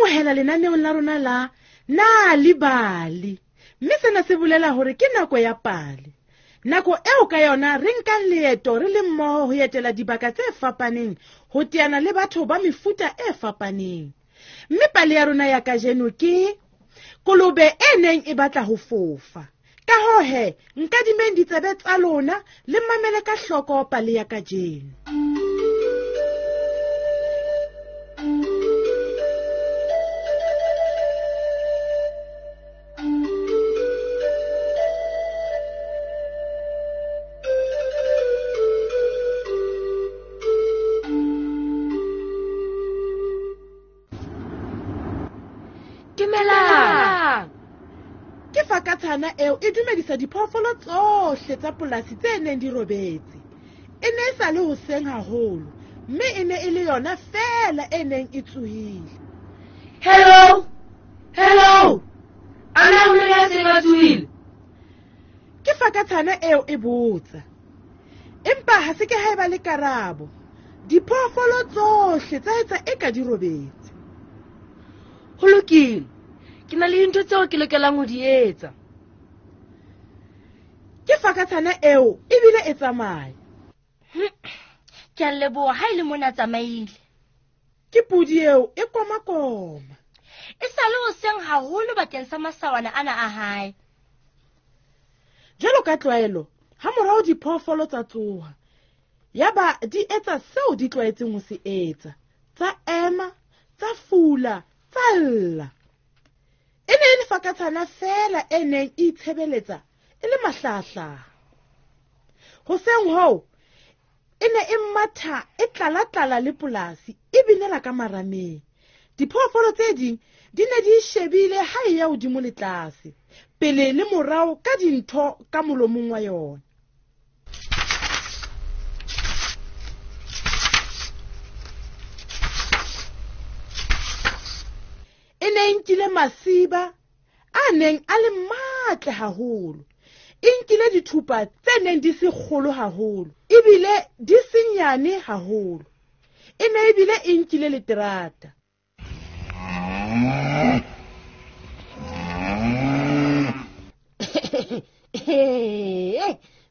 amohela lenaneong la rona la Nal'ibali, mme sena se bolela hore ke nako ya pale. Nako eo ka yona re nkang leeto re le mmoho ho etela dibaka tse fapaneng, ho teana le batho ba mefuta e fapaneng. Mme pale ya rona ya kajeno ke kolobe e neng e batla ho fofa. Ka hoo he, nkadimeng ditsebe tsa lona le mamele ka hloko pale ya kajeno. Dumelang! Ke fakatshana eo e dumedisa diphoofolo tsohle tsa polasi tse neng di robetse. E ne e sa le hoseng haholo, mme e ne e le yona feela e neng e tsohile. Hello! Hello! A na ho le ya seng a tsohile? Ke fakatshana eo e botsa. Empa ha se ke ha eba le karabo. Diphoofolo tsohle tsa etsa eka di robetse. Ho lokile. Ke na le dintho tseo ke lokelang ho di etsa. Ke fakatshana eo ebile e tsamaya. Ke a leboha ha e le mona tsamaile. Ke podi eo e komakoma. E sa le hoseng haholo bakeng sa masawana ana a hae. Jwalo ka tlwaelo, ha morao diphoofolo tsa tsoha. Yaba di etsa seo di tlwaetseng ho se etsa. Tsa ema, tsa fula, tsa lla. E ne e le fakatshana feela e neng e itshebeletsa e le mahlahahlaha. Hoseng hoo, e ne e matha e tlala-tlala le polasi e binela ka marameng. Diphoofolo tse ding di ne di shebile ha e ya hodimo le tlase, pele le morao ka dintho ka molomong wa yona. E ne e nkile masiba a neng a le matle haholo. E nkile dithupa tse neng di se kgolo haholo, ebile di se nyane haholo. E ne ebile e nkile leterata.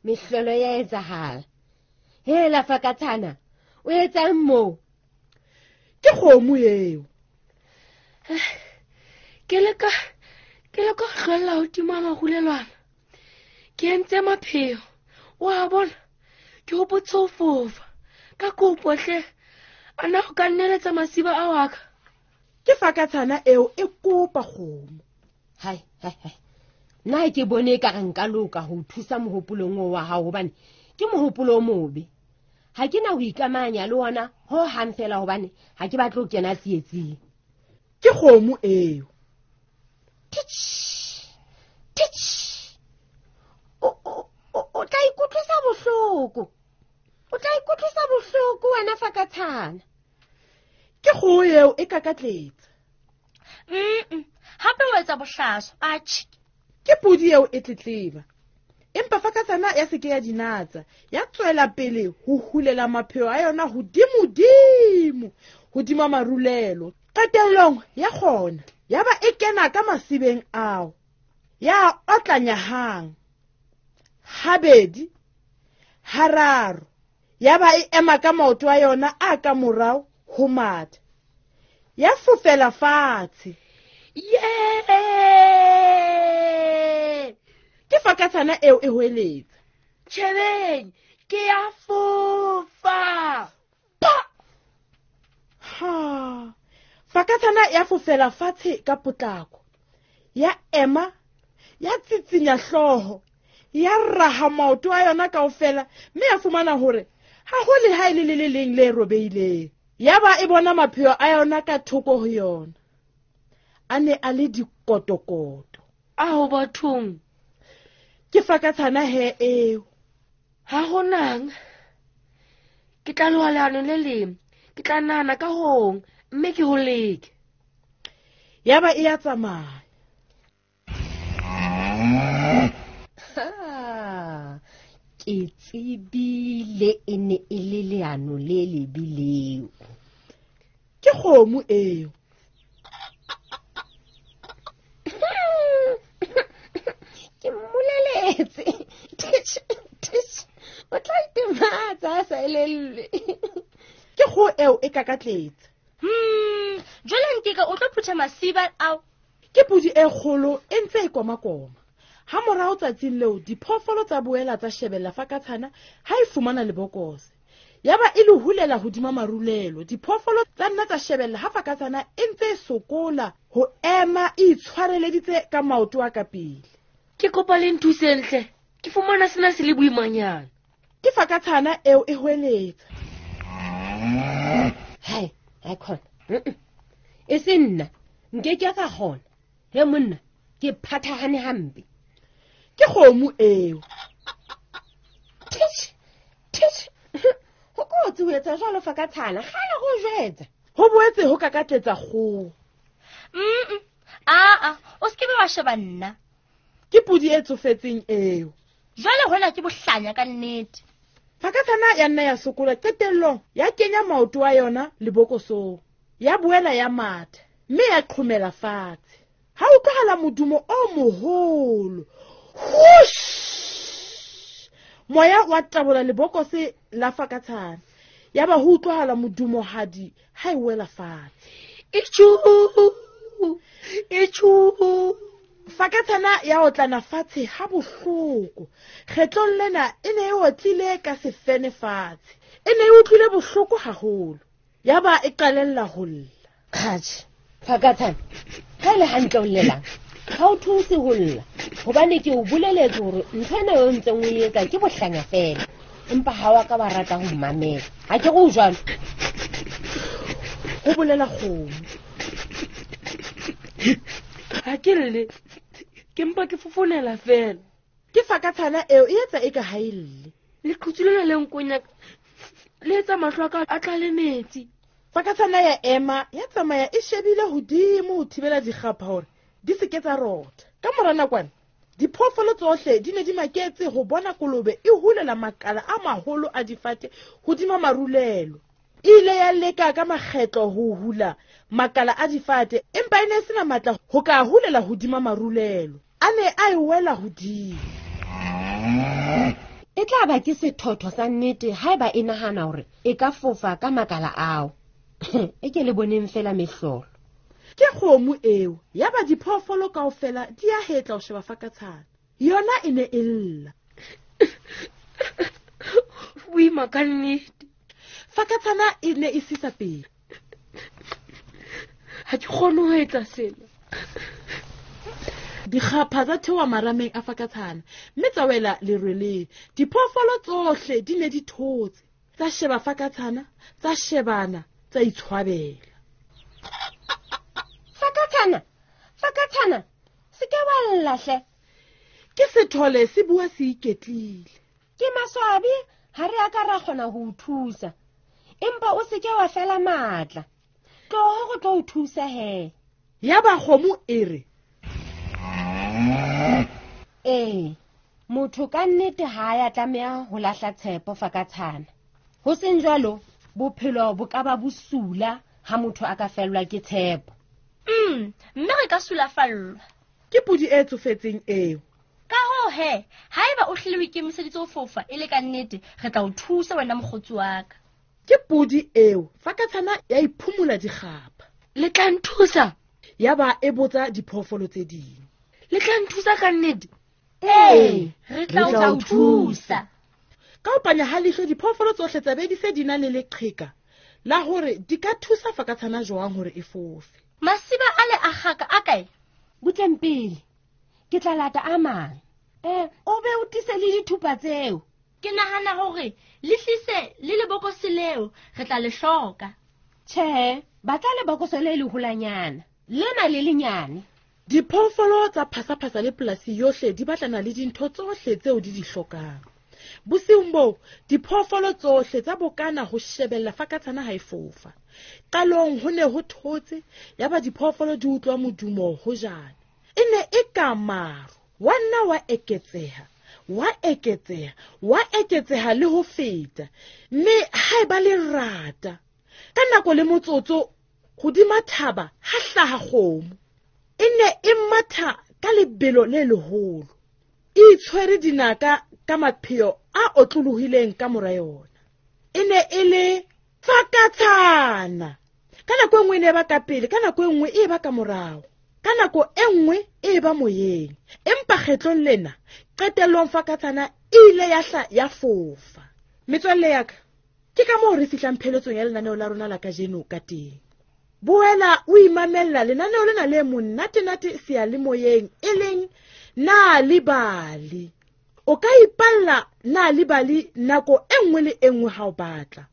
Mehlolo ya etsahala. Hela fakatshana, o etsang moo? Ke kgomo eo. Ke leka ho hlwella hodimo ha marulelwana. Ke entse mapheo. Wa bona? Ke hopotse ho fofa. Ka kopo hle, a na o ka nneletsa masiba ao a ka? Ke fakatshana eo e kopa kgomo. Hai, hai, hai. Nna ke bone e ka re nka loka ho thusa mohopolong oo wa hao, hobane ke mohopolo o mobe. Ha ke na ho ikamahanya le ona ho hang fela, hobane ha ke batle ho kena tsietsing. Ke kgomo eo. Titch, titch. O tla ikutlwisa bohloko. O tla ikutlwisa bohloko wena fakatshana. Ke kgoho eo e kakatletsa. Hape o etsa bohlaswa, atjhe. Ke podi eo e tletleba. Empa fakatshana ya se ke ya dinatsa, ya tswela pele ho hulela mapheo a yona hodimodimo, hodima marulelo. Qetellong ya kgona, ya ba e kena ka masibeng ao. Ya otlanya hang, habedi, hararo. Ya ba e ema ka maoto a yona a ka morao ho matha. Ya fofela fatshe. Yee! Ke fakatshana eo e hoeletsa. Tjhebeng, ke ya fofa. Pa! Ha! Fakatshana ya fofela fatshe ka potlako. Ya ema, ya tsitsinya hlooho, ya raha maoto a yona kaofela, mme ya fumana hore ha ho le ha e le le le leng le robehileng. Ya ba e bona mapheo a yona ka thoko ho yona. A ne a le dikotokoto. Ao bathong. Ke fakatshana he eo. Ha ho nang. Ke tla loha leano le leng. Ke tla nahana ka hong, mme ke ho leke. Ya ba e ya tsamaya. Ha, ke tsebile e ne e le leano le lebe leo. Ke kgomo eo. sa sa elellwe. Ke kgoho eo e kakatletse. Jwale Nkeka o tlo phutha masiba ao. Ke podi e kgolo e ntse e komakoma. Ha morao tsatsing leo diphoofolo tsa boela tsa shebella fakatshana ha e fumana lebokose. Yaba e le hulela hodima marulelo. Diphoofolo tsa nna tsa shebella ha fakatshana e ntse e sokola ho ema e itshwareleditse ka maoto a ka pele. Ke kopa le nthuseng hle. Ke fumana sena se le boimanyana. Ke fakatshana eo e hweletsa. Hai, ha khona. E se nna, nke ke ka kgona. He monna, ke phathahane hampe. Ke kgomo eo. Titch, titch. Ho kotsi ho etsa jwalo fakatshana, kgale go jwetsa. Ho boetse ho kakatletsa kgoho. Aa, o se ke be wa sheba nna. Ke podi e tsofetseng eo. Jwale hona ke bohlanya ka nnete. Fakatshana ya nna ya sokola qetellong ya kenya maoto a yona lebokosong. Ya boela ya matha mme ya qhomela fatshe. Ha utlwahala modumo o moholo. Whoosh! Moya wa tabola lebokose la fakatshana. Yaba ho utlwahala modumohadi ha e wela fatshe. Itjhu! Itjhu! Fakatshana ya otlana fatshe ha bohloko. Kgetlong lena e ne e otlile ka sefene fatshe. E ne e utlwile bohloko haholo. Yaba e qalella ho lla. Atjhe, fakatshana, ha e le hantle o llelang, ha o thuse ho lla. Hobane ke o boleletse hore ntho ena eo ntseng o e etsa ke bohlanya feela. Empa ha wa ka wa rata ho mmamela. Ha ke re o jwalo. Ho bolela kgomo. Ha ke lle, ke mpa ke fofonela feela. Ke fakatshana eo e etsa eka ha e lle. Leqhutsu lena le nkonya le etsa mahlo a ka a tlale metsi. Fakatshana ya ema ya tsamaya e shebile hodimo ho thibela dikgapha hore di se ke tsa rotha. Ka mora nakwana diphoofolo tsohle di ne di maketse ho bona kolobe e hulela makala a maholo a difate hodima marulelo. E ile ya leka ka makgetlo ho hula makala a difate, empa e ne e sena matla ho ka hulela hodima marulelo. A ne a e wela hodimo. E tla ba ke sethotho sa nnete haeba e nahana hore e ka fofa ka makala ao. E ke le boneng fela mehlolo. Ke kgomo eo, yaba diphoofolo kaofela di a hetla ho sheba fakatshana. Yona e ne e lla. Boima ka nnete. Fakatshana e ne e sisa pele. Ha ke kgone ho etsa sena. Dikgapha tsa theoha marameng a fakatshana mme tsa wela lerweleng. Diphoofolo tsohle di ne di thotse. Tsa sheba fakatshana, tsa shebana, tsa itshwabela. Fakatshana, fakatshana, se ke wa lla hle. Ke sethole se bua se iketlile. Ke maswabi ha re a ka ra kgona ho o thusa. Empa o se ke wa fela matla. Tloho go tlo o thusa he. Yaba kgomo e re, Ee, motho ka nnete ha ya tlameha ho lahla tshepo fakatshana. Ho seng jwalo, bophelo bo ka ba bosula ha motho a ka fellwa ke tshepo. Mme re ka sulafallwa. Ke podi e tsofetseng eo. Ka hoo he, haeba o hlile o ikemiseditse ho fofa e le ka nnete, re tla o thusa wena mokgotsi wa ka. Ke podi eo, fakatshana ya iphumola dikgapha. Le tla nthusa? Yaba e botsa diphoofolo tse ding. Le tla nthusa ka nnete? Ee, re tla o thusa. Ka ho panya ha leihlo diphoofolo tsohle tsa be di se di na le leqheka la hore di ka thusa fakatshana jwang hore e fofe. Masiba a le a kgaka a kae? Butleng pele, ke tla lata a mang. O be o tlise le dithupa tseo. Ke nahana hore le tlise le lebokose leo, re tla le hloka. Tjhe, batla lebokose le leholanyana, lena le lenyane. Diphoofolo tsa phasaphasa le polasi yohle di batlana le dintho tsohle tseo di di hlokang. Bosiung boo, diphoofolo tsohle tsa bokana ho shebella fakatshana ha e fofa. Qalong ho ne ho thotse, yaba diphoofolo di utlwa modumo hojana. E ne e ka maru, wa nna wa eketseha, wa eketseha, wa eketseha le ho feta. Mme ha eba lerata. Ka nako le motsotso, hodima thaba ha hlaha kgomo. E ne e matha ka lebelo le leholo. E itshwere dinaka ka mapheo a otlolohileng ka mora yona. E ne e le fakatshana. Ka nako e nngwe e ne e ba ka pele, ka nako e nngwe e ba ka morao, ka nako e nngwe e ba moyeng. Empa kgetlong lena, qetellong fakatshana e ile ya hla ya fofa. Metswalle ya ka, ke ka moo re fihlang pheletsong ya lenaneo la rona la kajeno ka teng. Boela o imamella lenaneo lena le monnatenate seyalemoyeng e leng Nal'ibali. O ka ipalla Nal'ibali nako e nngwe le e nngwe ha o batla.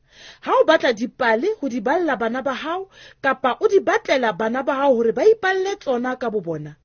Ha o batla dipale ho di balla bana ba hao kapa o di batlela bana ba hao hore ba ipalle tsona ka bobona,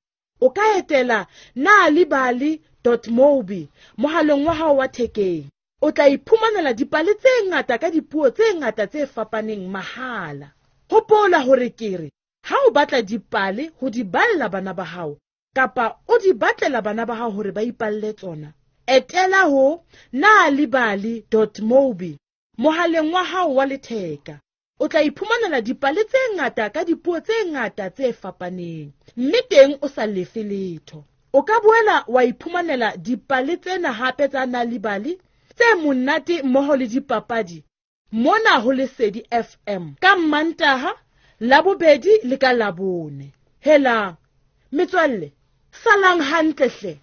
o ka etela nalibali dot mobi mohaleng wa hao wa thekeng. O tla iphumanela dipale tse ngata ka dipuo tse ngata tse fapaneng mahala. Hopola hore ke re ha o batla dipale ho di balla bana ba hao kapa o di batlela bana ba hao hore ba ipalle tsona, etela ho nalibali dot mobi mohaleng wa hao wa letheka. O tla iphumanela dipale tse ngata ka dipuo tse ngata tse fapaneng, mme teng o sa lefe letho. O ka boela wa iphumanela dipale tsena hape tsa Nal'ibali tse monate mmoho le dipapadi mona ho Lesedi FM ka Mmantaha, Labobedi le ka Labone. Helang metswalle, salang hantle hle.